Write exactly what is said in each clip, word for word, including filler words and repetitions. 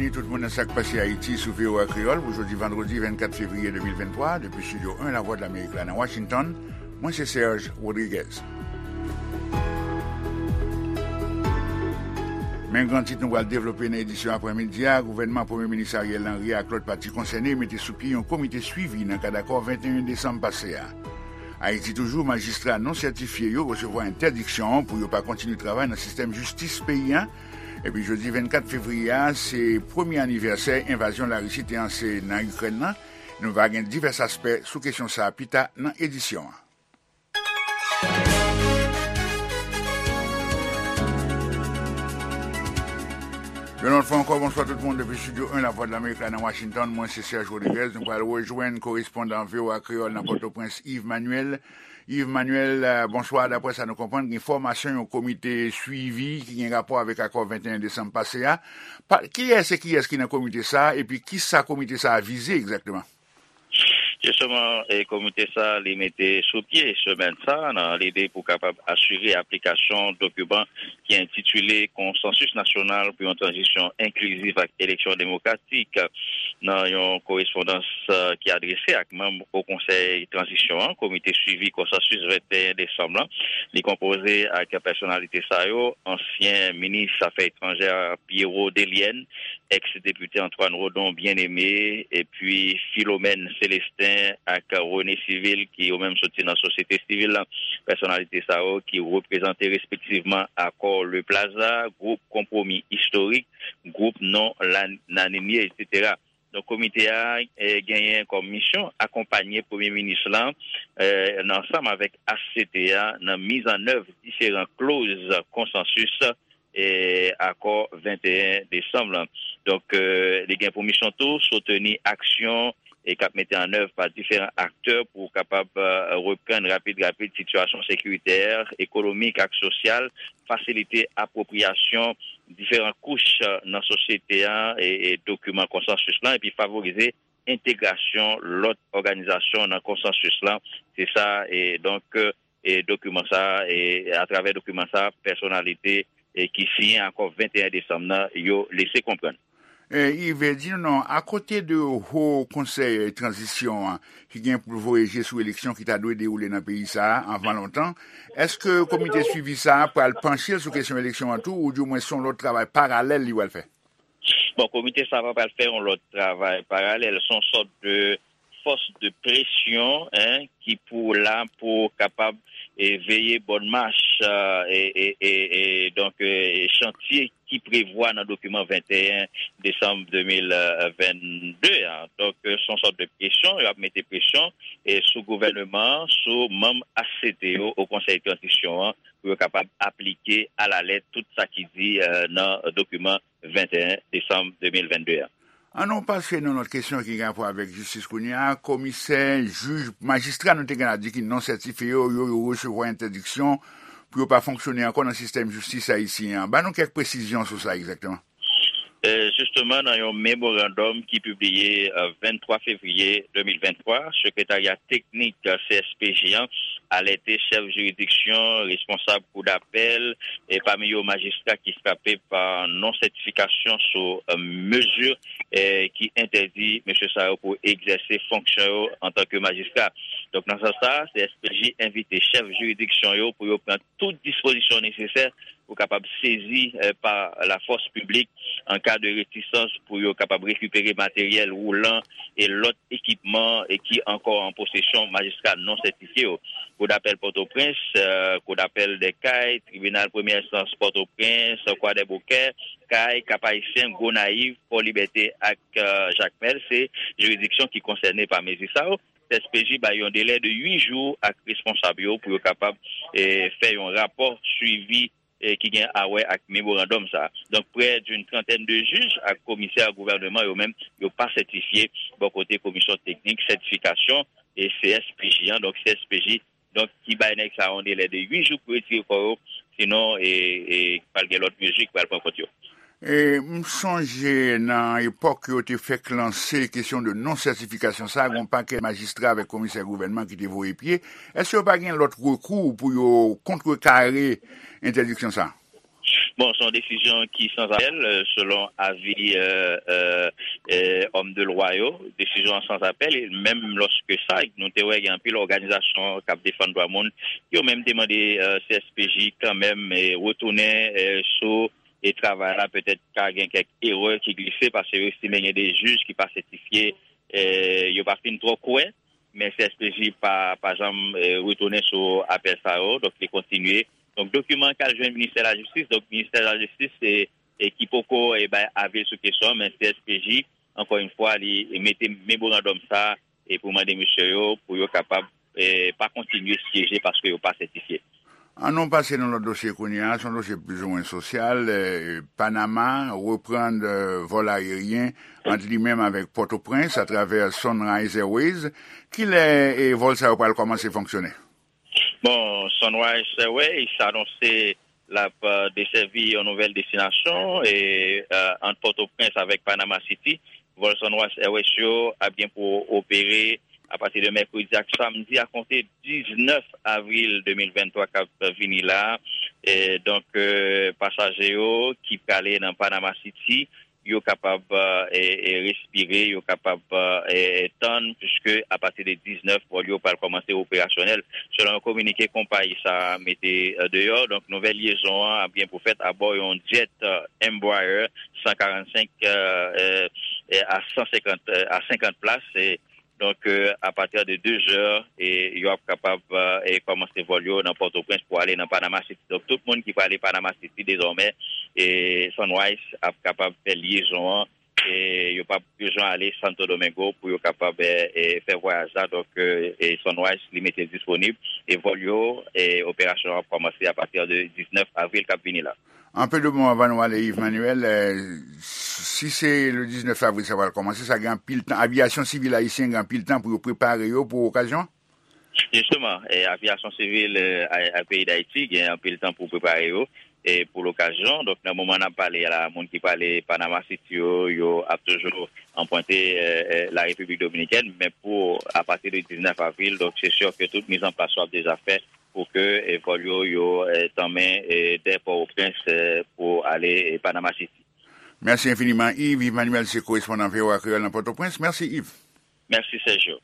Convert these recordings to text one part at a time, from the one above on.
Tout moun nan Sa k Pase Ayiti sou V O A Kreyòl pou jodi vandredi vennkat fevriye de mil venntwa, depi Estidyo en Lavwadlamerik la nan Washington, mwen se Serge Rodriguez. Men gran tit nou pral devlope nan edisyon aprèmidi a, gouvènman Premye Minis Ariel Henry ak lòt pati konsène mete sou pye yon komite swivi nan kad akò venteyen desanm pase a. Ayiti toujou, majistra non sètifye yo resevwa entèdiksyon pou yo pa kontinye travay nan sistèm jistis peyi a. Epi jodi vennkat fevriye a, se premye anivèsè envazyon Larisi te anse nan Ikrèn nan. Nou va gen divès aspè sou kesyon sa a pita nan edisyon an. Yon lòt fwa ankò, bonswa tout moun depi Estidyo en Lavwadlamerik la nan Washington. Mwen se Serge Rodriguez. Nou pral rejwenn korespondan V O A Kreyòl nan Pòtoprens, Yves Manuel. Yves Manuel, eh, bonswa. Daprè sa nou konprann, gen fòmasyon yon komite swivi ki gen rapò avèk akò venteyen desanm pase a. Pa, kiyès e kiyès ki nan komite sa a, epi kisa komite sa a vize egzakteman? Jisteman, e, komite sa a, li mete sou pye semèn sa a nan lide pou kapab asire aplikasyon dokiman ki entitile Konsansis Nasyonal pou yon Tranzisyon Enkliziv ak Eleksyon Demokratik. Nan yon korespondans, e, ki adrese ak manm Wo Konsèy Tranzisyon an, Komite Swivi Konsansis venteyen desanm lan, li konpoze ak pèsonalite sa yo, ansyen minis afè etranjè Pierrot Delienne, eks depite Antoine Rodon Bien-Aimé, epi Philomène Célestin ak René Civil, ki yo menm soti nan sosyete sivil la. Pèsonalite sa yo ki reprezante respektivman Akò Le Plaza, Gwoup Konpwomi Istorik, Gwoup Non Lanimye, etsetera. Donk, komite a, e, genyen kòm misyon akonpanye Premye Minis lan, e, nan, ansanm avèk H C T a, nan mizannèv diferan kloz konsansis, e, akò venteyen desanm lan. Donk, e, li gen pou misyon tou soutni aksyon e k ap mete an èv pa diferan aktè pou kapab, e, reprann rapid rapid sitiyasyon sekiritè, ekonomik ak sosyal, fasilite apwopriyasyon diferan kouch, e, nan sosyete a, e, e dokiman konsansis lan, epi favorize entegrasyon lòt òganizasyon nan konsansis lan. Se sa, e donk, e dokiman sa, e atravè dokiman sa, pèsonalite, e ki siyen akò venteyen desanm nan, yo lese konprann. E, Yves, di nou non, akote de Wo Konsèy Tranzisyon an, ki gen pou voye je sou eleksyon ki ta dwe dewoule nan peyi sa a anvan lontan, èske komite swivi sa a pral panche l sou kesyon eleksyon an tou, oudimwen se yon lòt travay paralèl li pral fè? Bon, komite sa a pa pral fè yon lòt travay paralèl. Se yon sòt de fòs de presyon, en, ki pou la pou kapab, e, veye bòn mach, e, e, e, e, donk, e, chantye ki prevwa nan dokiman venteyen desanm de mil vennde a. Donk, e, se yon sòt de presyon, y ap mete presyon, e, sou gouvèneman an, sou manm H C T yo, Wo Konsèy Tranzisyon an, pou yo kapab aplike alalèt tout sa ki di, e, nan dokiman venteyen desanm de mil vennde a. An nou pase nan lòt kesyon ki gen rapò avèk jistis kounye a. Komisè, jij, majistra nou te gen la di ki non sètifye yo, yo, yo resevwa entèdiksyon pou yo pa fonksyone ankò nan sistèm jistis ayisyen an. Ban nou kèk presizyon sou sa egzakteman. E, jisteman, nan yon memorandòm ki pibliye, e, venntwa fevriye de mil venntwa, sekretarya teknik, e, C S P J an alète chèf jiridiksyon, responsab kou dapèl, e pami yo majistra ki frape pa non-sètifikasyon sou, e, mezi, e, ki entèdi mesye sa yo pou egzèse fonksyon yo antanke majistra. Donk, nan sans sa, C S P J envite chèf jiridiksyon yo pou yo pran tout dispozisyon nesesè pou kapab sezi, e, pa lafòs piblik an ka de retisans pou yo kapab rekipere materyèl woulan e lòt ekipman e ki ankò an posesyon majistra non sètifye yo. Kou dapèl Pòtoprens, e, kou dapèl Dèkay, tribinal premyè enstans Pòtoprens, Kwadèboukè, Kay, Kap Ayisyen, Gonayiv, Fò Libète ak, e, Jakmèl, se jiridiksyon ki konsène pa mezi sa yo. S P J bay yon delè de uit jou ak responsab yo pou yo kapab, e, fè yon rapò swivi, e, ki gen a wè ak memorandòm sa a. Donk, près d'une trentaine de juges ak komisè gouvènman yo menm, yo pa sètifye bò kote komisyon teknik sètifikasyon e C S P J an. Donk, C S P J, donk, ki bay nèg sa a yon delè de uit jou pou retire kò yo, sinon, e, e, pral gen lòt mezi ki pral pran kont yo. E, m sonje nan epòk yo te fèk lanse kesyon de non-sètifikasyon sa a, gen yon pakèt majistra avèk komisè gouvènman ki te voye pye. Èske yo pa gen lòt rekou pou yo kontrekare entèdiksyon sa a? Bon, se yon desizyon ki sans apèl, euh, selon avi euh, euh, euh, òm de lwa yo. Desizyon an sans apèl, e menm lòske sa, nou te wè gen anpil òganizasyon k ap defann dwa moun, yo menm te mande euh, C S P J kanmenm eh, retounen eh, sou e travay la, petèt ka gen kèk erè ki glise, paske yo estime gen de jij ki pa sètifye, eh, yo pa fin twò kwè, men C S P J pa, pa janm eh, retounen sou apèl sa yo, donk li kontinye. Donk, dokiman k al jwenn Ministè Lajistis, donk Ministè Lajistis e, e ki poko e, bay avi l sou kesyon an, men C S P J, ankò yon fwa, li mete memorandòm sa e pou mande mesye yo pou yo kapab e, pa kontinye syeje paske yo pa sètifye. An nou pase nan lòt dosye kounye a, se yon dosye plizoumwen sosyal. Eh, Panama reprann eh, vòl ayeryen ant li menm avèk Pòtoprens atravè Sunrise Airways. Kilè eh, vòl sa yo pral kòmanse fonksyone? Bon, Sunrise Airways anonse l ap euh, desèvi yon nouvèl destinasyon e euh, ant Pòtoprens avèk Panama City. Vòl Sunrise Airways yo ap gen pou opere apati de mèkredi ak samdi a konte diznèf avril de mil venntwa k ap vini la. E donk, euh, pasaje yo ki prale nan Panama City, yo kapab e, e, respire, yo kapab e, tann, piske apati de diznèf, vòl yo pral kòmanse operasyonèl. Selon yon kominike konpayi sa a mete e, deyò, donk nouvèl lyezon an ap gen pou fèt abò yon jet e, Embraer san karannsenk e, e, e, a san senkant, e, a senkant plas. E, Donk, euh, apati de de zè, e, yo ap kapab e, kòmanse vòl yo nan Pòtoprens pou ale nan Panama City. Donk, tout moun ki prale Panama City dezòmè, e, Sunrise ap kapab fè lyezon an. E, yo p ap bezwen ale Santo Domingo pou yo kapab e, e, fè vwayaj la. Donk, e, e, Sunrise li mete disponib. E vòl yo, e, operasyon an ap kòmanse apati de diznèf avril k ap vini la. Anpe de mo anvan nou ale, Yves Manuel, eh, si se le diznèf avril sa pral kòmanse, sa gen anpil tan, aviyasyon sivil ayisyen gen anpil tan pou yo prepare yo pou okazyon an? Jisteman, eh, aviyasyon sivil eh, a, a peyi Dayiti gen anpil tan pou prepare yo eh, pou lokazyon. Donk, nan moman n ap pale a la, moun ki prale Panama City yo, yo ap toujou anpwante eh, eh, la Repiblik Dominikèn, men pou apati de diznèf avril, donk se si ke tout mizanplas yo ap deja fèt pou ke eh, vòl yo yo eh, tanmen eh, dè Pòtoprens eh, pou ale eh, Panama City. Mèsi enfiniman, Yves. Yves Manuel se korespondan V O A Kreyòl nan Pòtoprens. Mèsi, Yves. Mèsi, Sergio.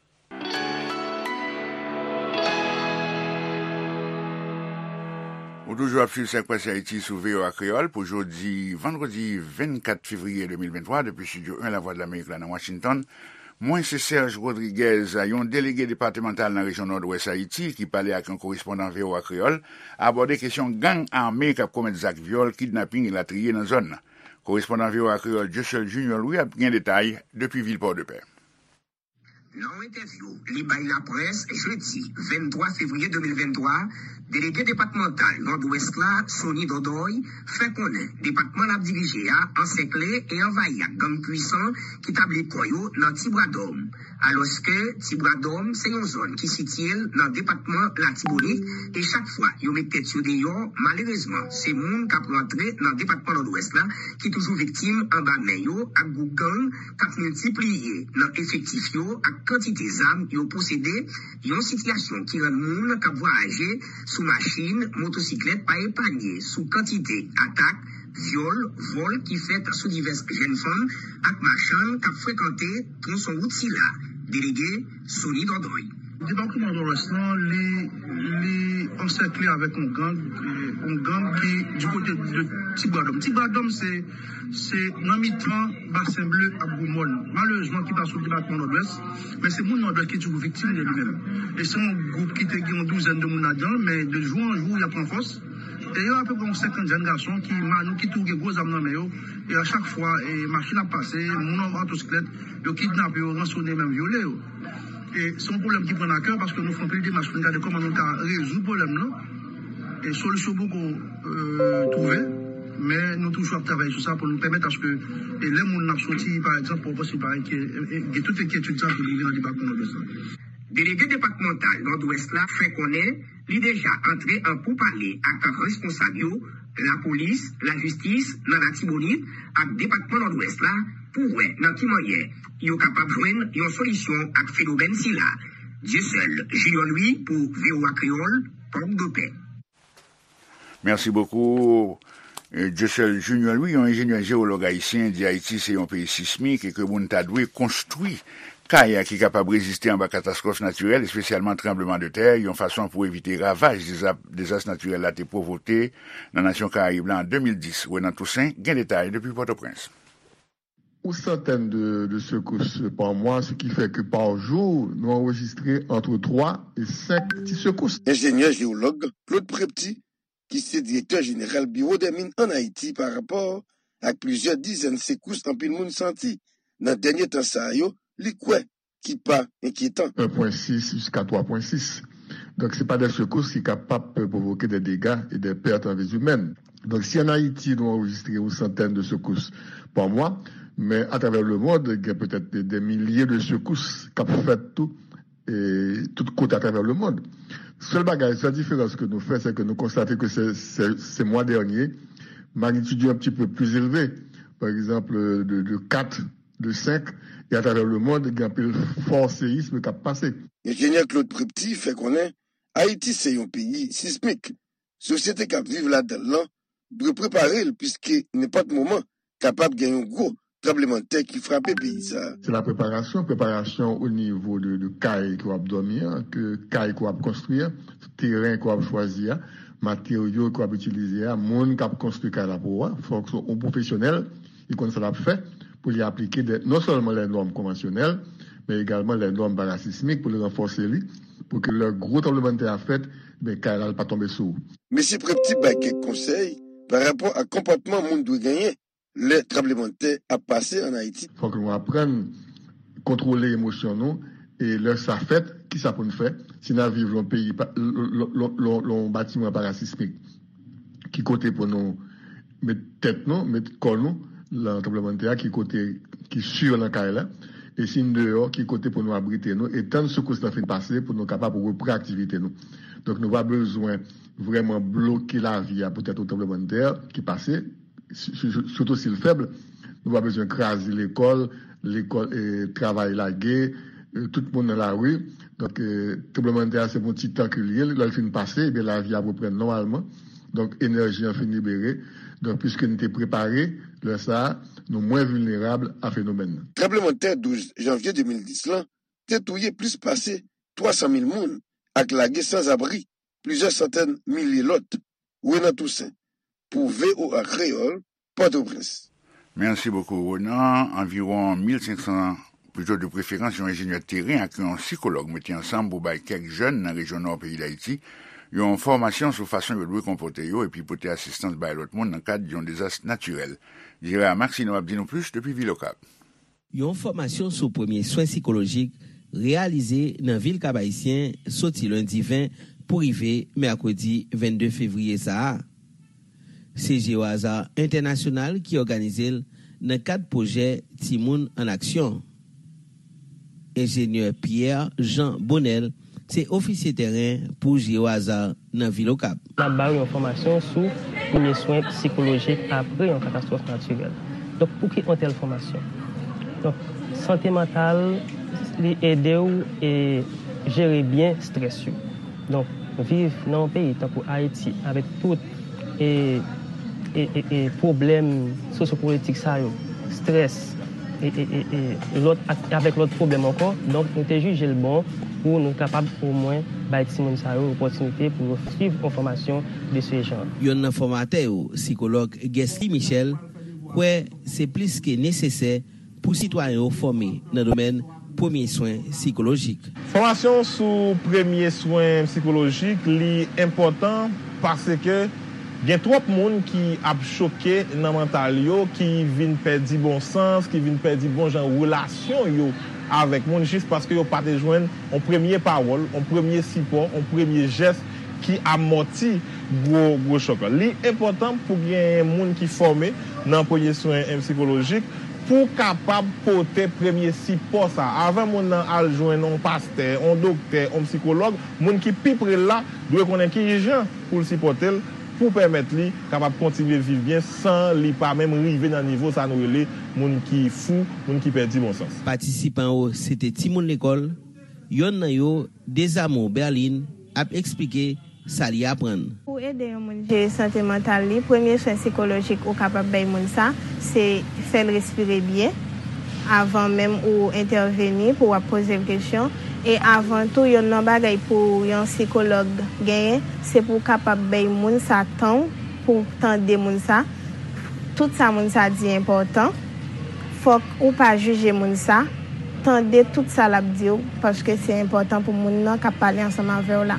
Ou toujou ap swiv Sa k Pase Ayiti sou V O A Kreyòl pou jodi, vandredi vennkat fevriye de mil venntwa, depi Estidyo en Lavwadlamerik la nan Washington. Mwen se Serge Rodriguez. Yon delege depatmantal nan rejyon Nòdwès Ayiti ki pale ak yon korespondan V O A Kreyòl abòde kesyon gang ame k ap komèt zak vyòl, kidnaping elatriye nan zòn nan. Korespondan V O A Kreyòl Dieuseul Junior Louis ap gen detay depi vil Pòdepè. Nan yon entèvyou li bay laprès jedi venntwa fevriye de mil venntwa, delege depatmantal Nòdwès la, Sony Dòdòy, fè konnen depatman l ap dirije a ansèkle e anvayi ak gang pwisan ki tabli kò yo nan Ti Bwadòm. Alòske Ti Bwadòm se yon zòn ki sitiye l nan depatman Latibonit e chak fwa yo met tèt yo deyò, malerezman, se moun k ap rantre nan depatman Nòdwès la ki toujou viktim anba men yo ak gwoup gang k ap miltipliye nan efektif yo ak kantite zam yo posede, yon sitiyasyon ki rann moun k ap vwayaje sou machin, motosiklèt pa epanye sou kantite atak, vyòl, vòl ki fèt sou divès jèn fanm ak machann k ap frekante twonson wout sila. Delege Sony Dòdòy. Depatman Nòdwès lan, li, li ansèkle avèk yon gang, eh, yon gang ki di kote de Ti Bwadòm. Ti Bwadòm, se, se nan mitan Basen Ble ak Gwo Mòn. Malerezman, ki pa sou depatman Nòdwès, men se moun Nòdwès ki toujou viktim de li menm. E se yon gwoup ki te gen yon douzèn de moun ladan l, men de jou an jou, y ap pran fòs. E yo apeprè yon senkant jèn gason ki manouke tou, gen gwo zam nan men yo. E a chak fwa, e machin ap pase, moun an motosiklèt, yo kidnape yo, ransone, menm vyole yo. E se yon pwoblèm ki pran n a kè paske nou fè anpil demach pou n gade kòman nou ka rezoud pwoblèm nan. E solisyon poko euh, twouve, men nou toujou ap travay sou sa pou nou pèmèt aske e lè moun ap soti, pa egzanp, Pòtoprens, li pa enkyè-, e, e, gen tout enkyetid sa ki rive nan depatman Nòdwès la. Delege depatmantal Nòdwès la fè konnen li deja antre an poupale ak responsab yo, lapolis, lajistis nan Latibonit ak depatman Nòdwès la pou wè nan ki manyè yo kapab jwenn yon solisyon ak fenomèn sila. Dieuseul Junior Louis pou V O A Kreyòl, Pòdepè. Merci beaucoup. Dieuseul Junior Louis, yon enjenyè jewològ ayisyen, di Ayiti se yon peyi sismik e ke moun ta dwe konstwi kay ki kapab reziste anba katastwòf natirèl, espesyalman tranblemanntè, yon fason pou evite ravaj deza- dezas natirèl la te pwovoke nan nasyon Karayib la an de mil dis. Renan Toussaint gen detay depi Pòtoprens. Ou santèn de, de sekous pa mwa, se ki fè ke pa jou, nou anrejistre antre twa e senk ti sekous. Enjenyè jewològ Claude Prepty, ki se direktè jeneral Biwo dè Min ann Ayiti pa rapò ak plizyè dizèn sekous anpil moun santi nan dènye tan sa yo, li kwè ki pa enkyetan. En pwen sis jiska twa pwen sis. Donk, se pa de sekous ki kapab pwovoke de dega e de pèt an vi imèn. Donk, si ann Ayiti nou anrejistre yon santèn de sekous pa mwa, men atravè lemond, gen petèt de milye de sekous k ap fèt tou, e tout kote atravè lemond. Sèl bagay, sèl diferans ke nou fè, se ke nou konstate ke se, se, se mwa dènye, magnitid yo un petit peu plus élevé. Pa egzanp, de, de kat, de senk, e atravè lemond, gen anpil fò seyism k ap pase. Enjenyè Claude Prepty fè konnen Ayiti se yon peyi sismik. Sosyete k ap viv ladan l lan dwe prepare l, piske nenpòt moman kapab gen yon gwo tranblemanntè ki frape peyi sa a. Se la preparasyon, preparasyon o nivo de, de kay ke w ap dòmi an, ke kay ke w ap konstwi an, teren ke w ap chwazi a, materyo ke w ap itilize a, moun k ap konstwi kay la pou ou a. Fòk se yon pwofesyonèl ki konn sa l ap fè pou li aplike de, non sèlman lè nòm konvansyonèl, men egalman lè nòm parasismik pou li ranfòse li, pou ke lè gwo tranblemanntè a fèt, ben kay la pa tonbe sou ou. Mesye Prepty bay kèk konsèy pa rapò ak konpòtman moun dwe genyen lè tranblemanntè ap pase ann Ayiti. Fòk nou aprann kontwole emosyon nou, e lè sa fèt, kisa pou n fè? Si n ap viv lan yon peyi, lan yon batiman parasismik, ki kote pou nou met tèt nou, met kò nou lan tranblemanntè a, ki kote ki si lan kay la, e si n deyò, ki kote pou nou abrite nou, e tann sekous lan fin pase pou nou kapab repran aktivite nou. Donk, nou pa bezwen vrèman bloke lavi a poutèt yon tranblemanntè ki pase, sitou si l fèb. Nou pa bezwen kraze lekòl, lekòl, e, travay lage, e, tout moun nan lari. Donk, e, tranblemanntè a se pou yon ti tan ke l ye, lè l fin pase, ebyen lavi ap reprann nòmalman. Donk, enèji an fin libere. Donk, piske n te prepare, lè sa a, nou mwen vilnerab a fenomèn nan. Tranblemanntè douz janvye de mil dis lan te touye plis pase twa san mil moun ak lage sanzabri plizyè santèn milye lòt. Renan Toussaint, pou V O A Kreyòl, Pòtoprens. Mèsi bokou, Renan. Anviwon mil senk san, pito de preferans, yon enjenyè teren ak yon sikològ mete ansanm pou bay kèk jèn nan rejyon nò peyi Dayiti yon fòmasyon sou fason yo dwe konpòte yo epi pote asistans bay lòt moun nan kad yon dezas natirèl. Gérard Maxineau ap di nou plis depi vil Okap. Yon fòmasyon sou premye swen sikolojik reyalize nan vil Kap Ayisyen soti lendi ven pou rive mèkredi vennde fevriye sa a. Se Geohazard Entènasyonal ki òganize l nan kad pwojè Timoun an Aksyon. Enjenyè Pierre Jean Bonnel se ofisye tèren pou Geohazard nan vil Okap. N ap ba yo yon fòmasyon sou premye swen sikolojik apre yon katastwòf natirèl. Donk, poukisa yon tèl fòmasyon? Donk, sante mantal, li ede w e jere byen estrès yo. Donk, viv nan yon peyi tankou Ayiti, avèk tout e, e, e, e pwoblèm sosyopolitik sa yo, estrès, e, e, e, e lòt, ak, avèk lòt pwoblèm ankò. Donk, nou te jije l bon pou nou kapab omwen bay timoun sa yo opòtinite pou yo swiv yon fòmasyon de se jan. Yonn nan fòmatè yo, sikològ Guesly Michel, kwè se plis ke nesesè pou sitwayen yo fòme nan domèn premye swen sikolojik. Fòmasyon sou premye swen sikolojik, li enpòtan paske gen twòp moun ki ap choke nan mantal yo, ki vin pèdi bon sans, ki vin pèdi bon jan relasyon yo avèk moun, jis paske yo pa te jwenn yon premye pawòl, yon premye sipò, yon premye jès ki amòti gwo, gwo chòk la. Li enpòtan pou gen moun ki fòme nan premye swen sikolojik pou kapab pote premye sipò sa a. Avan moun nan al jwenn yon pastè, yon doktè, yon sikològ, moun ki pi pre l la dwe konnen ki jan pou l sipòte l, pou pèmèt li kapab kontinye viv byen san li pa menm rive nan nivo sa nou rele moun ki fou, moun ki pèdi bon sans. Patisipan yo se te timoun lekòl, yonn nan yo, Dezamour Berline, ap eksplike sa li aprann. Pou ede yon moun jere sante mantal li, premye swen sikolojik ou kapab bay moun sa, se fè l respire byen avan menm ou entèveni, pou w ap poze l kesyon. E avan tou, yonn nan bagay pou yon sikològ genyen, se pou w kapab bay moun sa tan w pou w tande moun sa. Tout sa moun sa di enpòtan. Fòk ou pa jije moun sa. Tande tout sa l ap di w, paske se enpòtan pou moun nan k ap pale ansanm avè w la.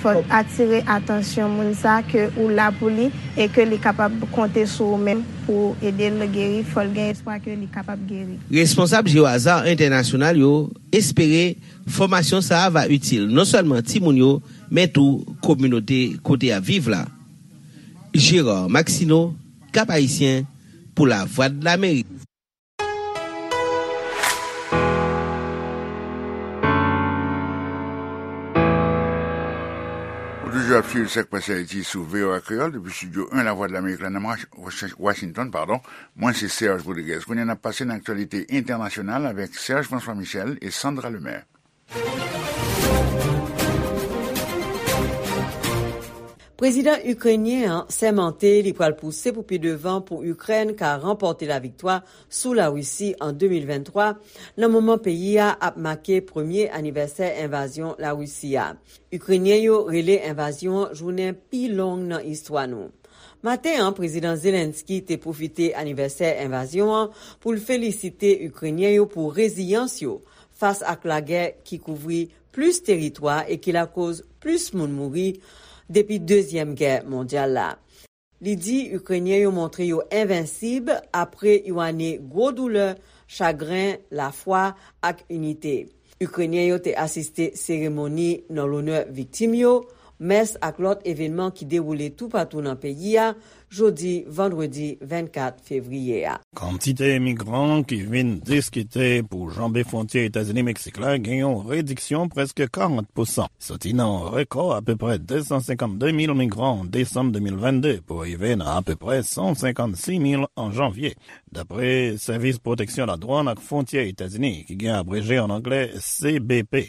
Fòk atire atansyon moun sa ke ou la pou li e ke li kapab konte sou ou menm pou w ede l geri. Fò l gen espwa ke li kapab geri. Responsab Jeo Hazard Entènasyonal yo espere fòmasyon sa a va itil non sèlman timoun yo, men tou kominote kote y ap viv la. Gérard Maxineau, Cap Haïtien, pou Lavwadlamerik. Ou toujou ap swiv Sak Pase Ayiti sou V O A Kreyòl depi estidyo en Lavwadlamerik la nan Washington, padon. Mwen se Serge Rodriguez. Kounye a n ap pase nan aktyalite entènasyonal avèk Serge François Michel e Sandra Lemaire. Prezidan ikrenyen an sèmante li pral pouse pou pi devan pou Ikrèn ka ranpòte laviktwa sou Larisi an de mil venntwa, nan moman peyi a ap make premye anivèsè envazyon Larisi a. Ikrenyen yo rele envazyon an jounen pi long nan istwa nou. Maten an, Prezidan Zelensky te pwofite anivèsè envazyon an pou l felisite Ikrenyen yo pou reziyans yo fas ak lagè ki kouvri plis teritwa e ki lakoz plis moun mouri depi Dezyèm Gè Mondyal la. Li di Ikrenyen yo montre yo envensib apre yon ane gwo doulè, chagren, lafwa, ak inite. Ikrenyen yo te asiste seremoni nan lonè viktim yo, mès ak lòt evènman ki dewoule toupatou nan peyi a, jodi vandredi vennkat fevriye a. Kantite migran ki vin diskite pou janbe fwontyè Etazini-Meksik la gen yon rediksyon prèske karant pousan. Soti nan yon rekò apeprè de san senkannde mil migran an desanm de mil vennde pou rive nan apeprè san senkannsis mil an janvye, dapre Sèvis Pwoteksyon Ladwàn ak Fwontyè Etazini, ki gen abreje an anglè C B P.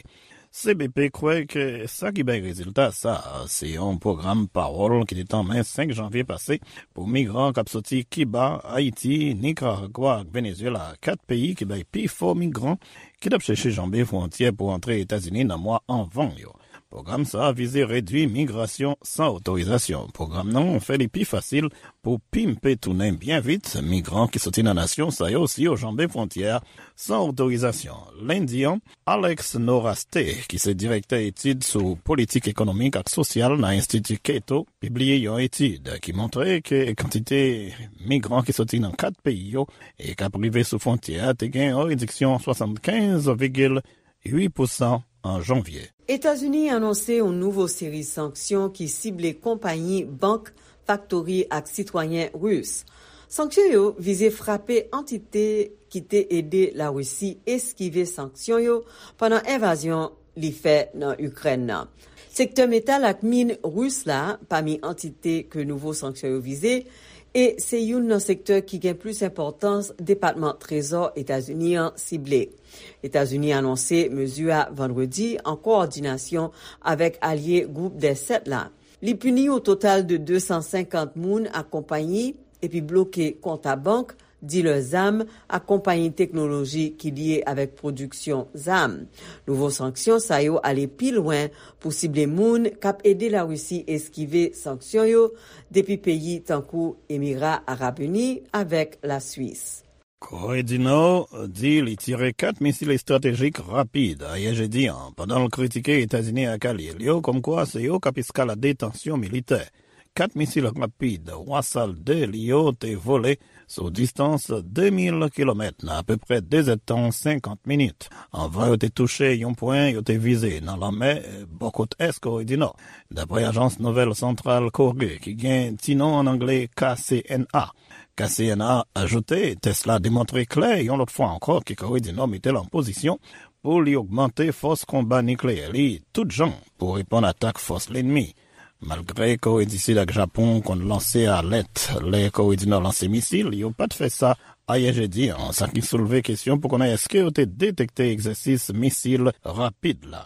C B P kwè ke sa ki bay rezilta sa a se yon pwogram pawòl ki te tanmen senk janvye pase pou migran k ap soti Kiba, Ayiti, Nikaragwa ak Venezyela, kat peyi ki bay pifò migran ki t ap chèche janbe fwontyè pou antre Etazini nan mwa avan yo. Pwogram sa a vize redui migrasyon san otorizasyon. Pwogram nan fè li pi fasil pou pimpe tounen byen vit migran ki soti nan nasyon sa yo si yo janbe fwontyè a san otorizasyon. Lendi an, Alex Noraste, ki se direktè etid sou politik ekonomik ak sosyal nan Enstiti Cato, pibliye yon etid ki montre ke kantite migran ki soti nan kat peyi yo e k ap rive sou fwontyè a te gen yon rediksyon swasannkenz vigil uit pousan an janvye. Etazini anonse yon nouvo seri sanksyon ki sible konpayi, bank, faktori ak sitwayen ris. Sanksyon yo vize frape antite ki te ede Larisi eskive sanksyon yo pandan envazyon li fè nan Ikrèn nan. Sektè metal ak min ris la pami antite ke nouvo sanksyon yo vize, e se youn nan sektè ki gen plis enpòtans Depatman Trezò Etazini an sible. Etazini anonse mezi a vandredi an kowòdinasyon avèk alye Gwoup dè Sèt la. Li pini yon total de de san senkant moun ak konpayi epi bloke kont a bank, dilè zam ak konpayi teknoloji ki lye avèk pwodiksyon zam. Nouvo sanksyon sa yo ale pi lwen pou sible moun k ap ede Larisi eskive sanksyon yo depi peyi tankou Emira Arab Ini avèk Laswis. Kore di Nò di li tire kat misil estratejik rapid ayè jedi a, pandan l kritike Etazini ak alye l yo kòmkwa se yo k ap eskalade tansyon militè. Kat misil rapid Wasal de li yo te vole sou distans de mil kilomèt nan apeprè de zèdtan senkant minit, anvan yo te touche yon pwen yo te vize nan lanmè bò kot ès Kore di Nò, dapre ajans nouvèl Santral Kore ki gen ti non an angle K C N A. K C N A ajoute tès la demontre klè yon lòt fwa ankò ke Kore di Nò mete l an pozisyon pou li ogmante fòs konba nikleyè li tout jan pou reponn atak fòs lènmi. Malgre Kore di Sid ak Japon konn lanse alèt lè Kore di Nò lanse misil, yo pa t fè sa ayè jedi a, sa ki soulve kesyon pou konnen èske yo te detekte egzèsis misil rapid la.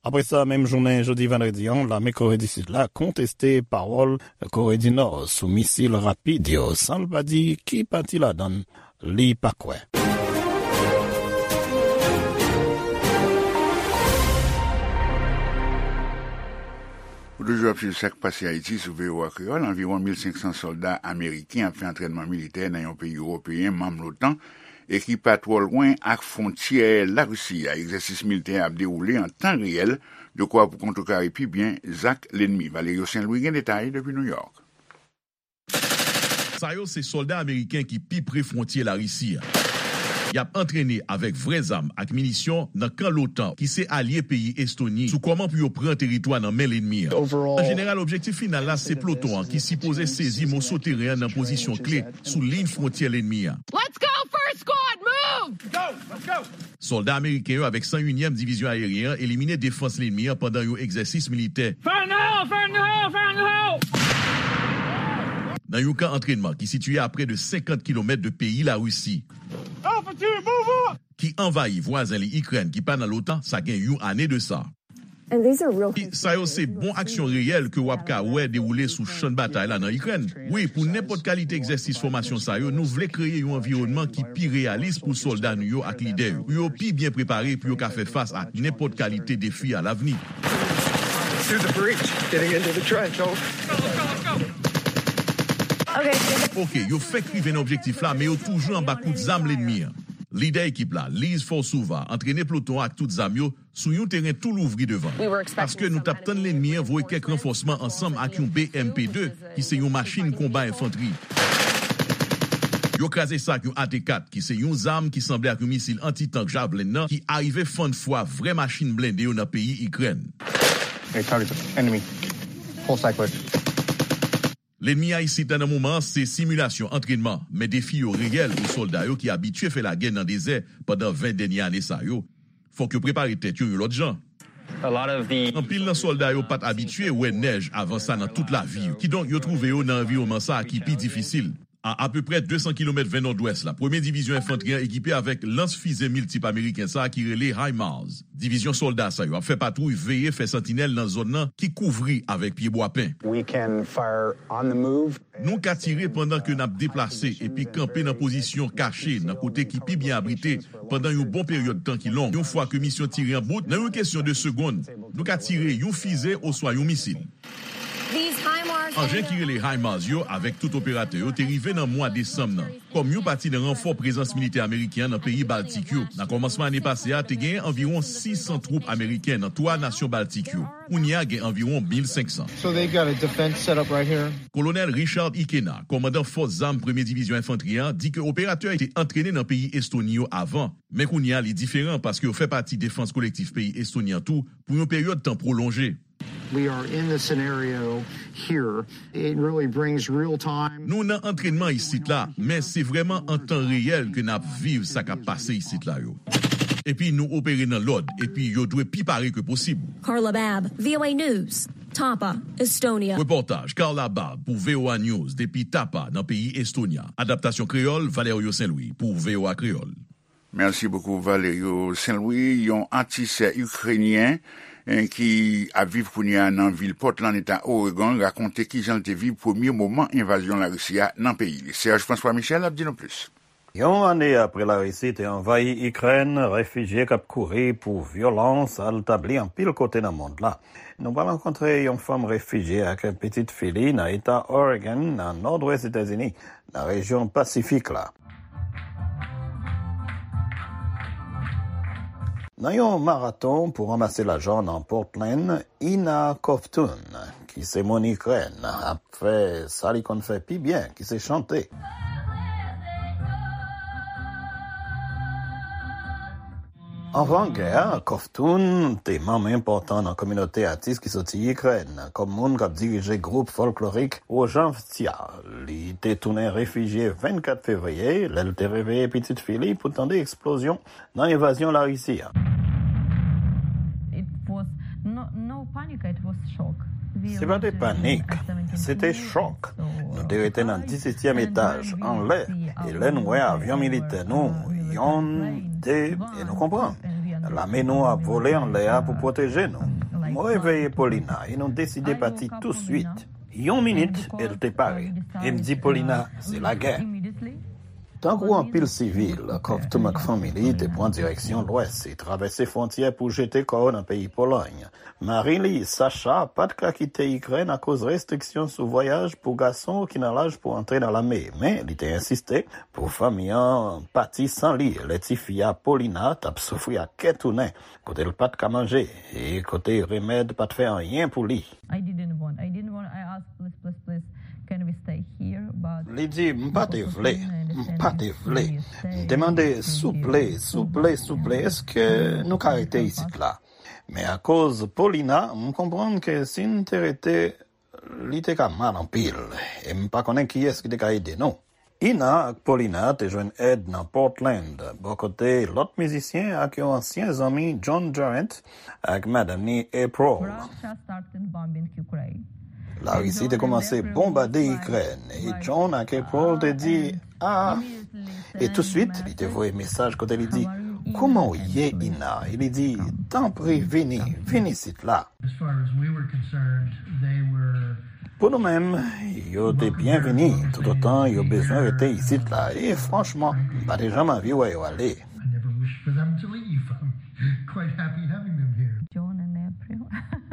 Apre sa, menm jounen jodi vandredi an, lame Kore di Sid la konteste pawòl Kore di Nò sou misil rapid yo, san l pa di ki pati ladan l li pa kwè. Ou toujou ap swiv Sa k Pase Ayiti sou V O A Kreyòl. Anviwon mil senk san sòlda ameriken ap fè antrènman militè nan yon peyi ewopeyen manm l'OTAN e ki pa twò lwen ak fwontyè Larisi a. Egzèsis militè ap dewoule an tan reyèl, dekwa pou kontrekare pi byen zak lènmi. Valerio Saint Louis gen detay depi New York. Sa yo se sòlda ameriken ki pi pre fwontyè Larisi a. Y ap antrene avèk vrè zam ak minisyon nan kan l'OTAN, ki se alye peyi Estoni, sou kòman pou yo pran teritwa nan men lènmi an. An jeneral, objektif final la se ploton an ki sipoze sezi moso teren an nan pozisyon kle sou liy fwontyè lènmi an. Let's go, first squad, move! Sòlda ameriken yo avèk san unyèm Divizyon Ayeryen an elimine defans lènmi an pandan yon egzèsis militè. Fire in the hole! Fire in the hole! Fire in the hole! Nan yon kan antrènman ki sitiye a prè de senkant kilomèt de peyi Larisi, Infantry, move up! Ki anvayi vwazen li Ikrèn ki pa nan l'OTAN, sa gen yon ane de sa. And these are real things. Sa yo se bon aksyon reyèl ke w ap ka wè dewoule sou chan batay la nan Ikrèn. Wi, pou nenpòt kalite egzèsis fòmasyon sa yo, nou vle kreye yon anviwònman ki pi reyalis pou sòlda nou yo ak lidè yo, pou yo pi byen prepare, pou yo ka fè fas ak nenpòt kalite defi alavni. Through the breach, getting into the trench, over. Oke, yo fenk rive nan objektif la, men yo toujou anba kout zam lènmi an. Lidè ekip la, Liz Forsova, antrene ploton an ak tout zam yo sou yon teren tou louvri devan. Paske nou t ap tann lènmi an voye kèk ranfòsman ansanm ak yon B M P de, ki se yon machin konba enfantri. Yo kraze sa ak yon A T kat, ki se yon zam ki sanble ak yon misil anti-tank Javelin nan, ki arive fann fwa vrè machin blende yo nan peyi Ikrèn. Hey, target, enemy. Full cyclist. Lènmi a isit la nan moman an se similasyon antrènman, men defi yo reyèl pou sòlda yo ki abitye fè lagè nan dezè pandan ven dènye ane sa yo. Fòk yo prepare tèt yo yon lòt jan. A lot of the Anpil nan sòlda yo pa t abitye wè nèj avan sa nan tout lavi yo. Kidonk, yo twouve yo nan anviwònman sa a ki pi difisil. A apeprè de san kilomèt ven nòdwès la, premye divizyon enfantri an ekipe avèk lans fize miltip ameriken sa a ki rele HIMARS. Divizyon sòlda sa yo ap fè patwouy veye, fè santinèl nan zòn nan ki kouvri avèk pyebwa pen. We can fire on the move. Nou ka tire pandan ke n ap deplase epi kanpe nan pozisyon kache nan kote ki pi byen abrite pandan yon bon peryòd tan ki long. Yon fwa ke misyon tire an bout, nan yon kesyon de segonn, nou ka tire yon fize oswa yon misil. These HIMARS Anjen ki rele HIMARS yo avèk tout operatè yo te rive nan mwa desanm nan, kòm yon pati nan ranfò prezans militè ameriken an nan peyi Baltik yo. Nan kòmansman ane pase a, te genyen anviwon sis san twoup ameriken nan twa nasyon Baltik yo. Kounye a, gen anviwon mil senk san. So they got a defense set up right here. Kolonèl Richard Ikena, kòmandan fòs zam premye divizyon enfantri an, di ke operatè yo te antrene nan peyi Estoni yo avan, men kounye a, li diferan paske yo fè pati defans kolektif peyi Estoni an tou pou yon peryòd tan pwolonje. We are in the scenario here. It really brings real time. Nou nan antrènman isit la, men se vrèman an tan reyèl ke n ap viv sa k ap pase isit la yo. Epi nou opere nan lòd, epi yo dwe pi pare ke posib. Carla Babb, V O A News, Tapa, Estonia. Repòtaj Carla Babb pou V O A News depi Tapa nan peyi Estonya. Adaptasyon kreyòl, Valerio Saint Louis pou V O A Kreyòl. Merci beaucoup, Valerio Saint-Louis. Yon atis ikrenyen, eh, ki ap viv kounye a nan vil Portland, eta Oregon, rakonte kijan l te viv premye moman envazyon Larisi a nan peyi li. Serge François Michel ap di nou plis. Yon ane apre Larisi te anvayi Ikrèn, refijye k ap kouri pou vyolans al tabli anpil kote nan mond la. Nou pral rankontre yon fanm refijye ak pitit fi li nan eta Oregon, nan nòdwès Etazini, nan rejyon Pasifik la. Nan yon maraton pou ranmase lajan nan Portland, Ina Kovtun, ki se moun Ikrèn, ap fè sa li konn fè pi byen, ki se chante. Anvan gè a, Kovtun te manm enpòtan nan kominote atis ki soti Ikrèn, kòm moun k ap dirije gwoup fòlklorik Wojavtsia. Li te tounen refijye vennkat fevriye, lè l te reveye pitit fi li pou tande eksplozyon nan envazyon Larisi a. It was no, no panic, it was shock. We Se pa te panik, se te chòk. Nou te rete nan dissetyèm etaj, anlè, e lè nou wè avyon militè nou, yonn, de, e nou konprann. Lame nou ap vole anlè a pou pwoteje nou. Mwen reveye Paulina e nou deside pati touswit. Yon minit, e l te pare. E m di Paulina, se lagè. Tankou anpil sivil, Covton ak fanmi li te pran direksyon lwès e travèse fwontyè pou jete kò yo nan peyi Polòy. Mari li, Sacha, pa t ka kite Ikrèn akoz restriksyon sou vwayaj pou gason ki nan laj pou antre nan lame, men li te ensiste pou fanmi an pati san li lè tifi a Paulina t ap soufri ak kè tounen, kote l pa t ka manje e kote remèd pa t fè anyen pou li. I didn't want. I didn't want. I asked, "Please, please, please, can we stay here?" But Li di, "M pa te vle, m pa te vle." M te mande, "Souple, souple, souple, èske nou ka rete isit la?" Men akoz Paulina, m konprann ke si n te rete, li te ka mal anpil, e m pa konnen kiyès ki te ka ede nou. Ina ak Paulina te jwenn èd nan Portland, bò kote lòt mizisyen ak yon ansyen zanmi, John Durant, ak madanm ni, April. Russia started bombing Ukraine. Larisi te koumanse bonbade Ikrèn, e John ak April te di, "Ah." E touswit, li te voye mesaj kote li di, "Kouman w ye, Ina?" E li di, "Tanpri, vini, vin isit la." As far as we were concerned, they were Pou nou menm, yo te byenvini toutotan yo bezwen rete isit la, e franchman, m pa te janm anvi wè yo ale. I never wished for them to leave. I'm quite happy having them here. John and April.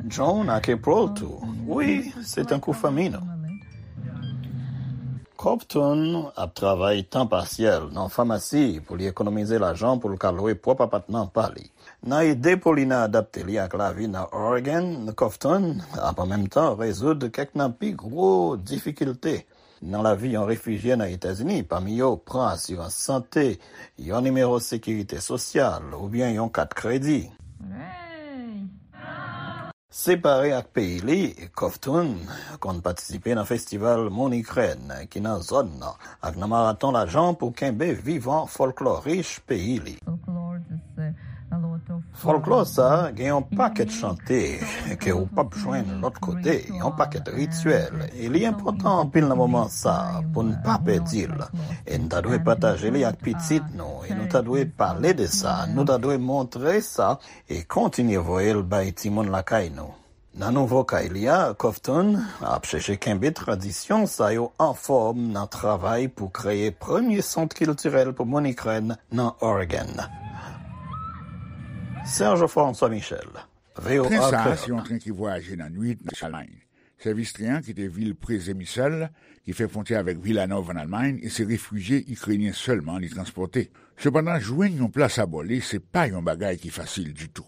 John ak April tou. Wi, se tankou fanmi nou. Covton ap travay tan pasyèl nan famasi pou li ekonomize lajan pou l ka lwe pwòp apatman pa li. Nan ede Paulina adapte li ak lavi nan Oregon, Covton ap an menm tan rezoud kèk nan pi gwo difikilte nan lavi yon refijye nan Etazini, pami yo pran asirans sante, yon nimewo sekirite sosyal oubyen yon kat kredi. Separe ak peyi li, Covton konn patisipe nan festival Moun Ikrèn ki nan zòn nan ak nan maraton lajan pou kenbe vivan fòlklò rich peyi li. Fòlklò sa a gen yon pakèt chante ke ou p ap jwenn lòt kote, yon pakèt rityèl, e li enpòtan anpil nan moman sa a pou n pa pèdi l. E n ta dwe pataje li ak pitit nou, e nou ta dwe pale de sa, nou ta dwe montre sa, e kontinye voye l bay timoun lakay nou. Nan nouvo kay li a, Covton ap chèche kenbe tradisyon sa yo anfòm nan travay pou kreye premye sant kiltirèl pou moun Ikrèn nan Oregon. Serge François Michel, V O A Tren sa a se Kreyòl. Yon tren ki vwayaje nan nwit nan Almay. Sèvis tren an kite vil Przemysl, ki fè fwontyè avèk Wilanów ann Almay, e se refijye ikrenyen sèlman li transpòte. Sepandan, jwenn yon plas abò li se pa yon bagay ki fasil ditou.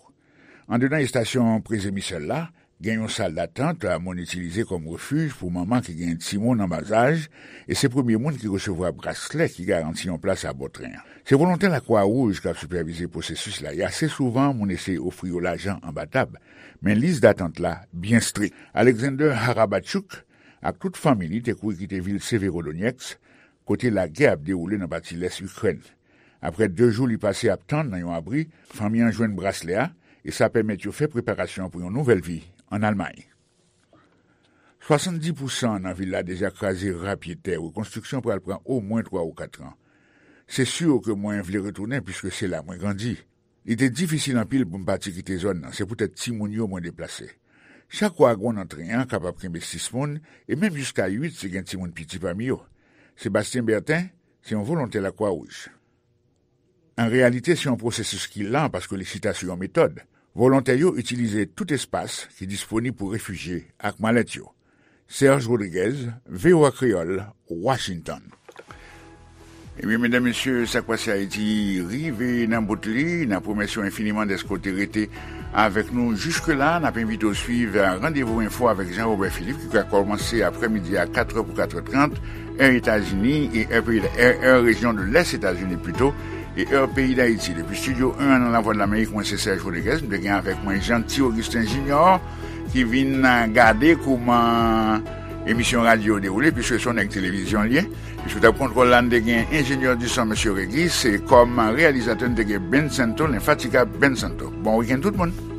Andedan estasyon Przemysl la, gen yon sal datant moun itilize kòm refij pou manman ki gen timoun an bazaj, e se premye moun ki resevwa braslè ki garanti yon plas abò tren an. Se volontè Lakwa Wouj k ap sipèvize pwosesis la, e ase souvan moun eseye ofri yo lajan anba tab, men lis datant la byen strik. Alexander Harabachouk ak tout fanmi li te kouri kite vil Severodonetsk, kote lagè ap dewoule nan pati lès Ikrèn. Apre de jou li pase ap tann nan yon abri, fanmi an jwenn braslè a, e sa pèmèt yo fè preparasyon pou yon nouvèl vi ann Almay. Swasanndis pousan nan vil la deja kraze ra pye tè. Rekonstriksyon pral pran omwen twa ou kat an. Se si ke mwen vle retounen, piske se la mwen grandi. Li te difisil anpil pou m pati kite zòn nan, se poutèt timoun yo mwen deplase. Chak wagon nan tren an kapab kenbe sis moun, e menm jiska uit si gen timoun piti pami yo. Sébastien Bertin se yon volontè Lakwa Wouj. An reyalite, se yon pwosesis ki lan paske li chita sou yon metòd. Volontè yo itilize tout espas ki disponib pou refijye ak malèt yo. Serge Rodriguez, V O A Kreyòl, Washington. Ebyen, medam, mesye, Sa k Pase Ayiti rive nan bout li. N ap remèsye w enfiniman dèske w te rete avèk nou jiske la. N ap envite w swiv Randevou Enfo avèk Jean Robert Philippe, ki pral kòmanse aprèmidi a katrè pou katrè trant, è Etazini, e è peyi, è, è rejyon de lès Etazini pito, e è peyi Dayiti. Depi Estidyo en an nan Lavwadlamerik, mwen se Serge Rodriguez, m te gen avèk mwen Jeanty Augustin Junior, ki vin gade kouman emisyon radyo yo dewoule, piske se yon nèg televizyon l ye. Epi sou tab kontwòl la, n te gen enjenyè di son, mesye Régis, e kòm reyalizatè, n te gen Ben Santo, lenfatigab Ben Santo. Bon wikenn, tout moun!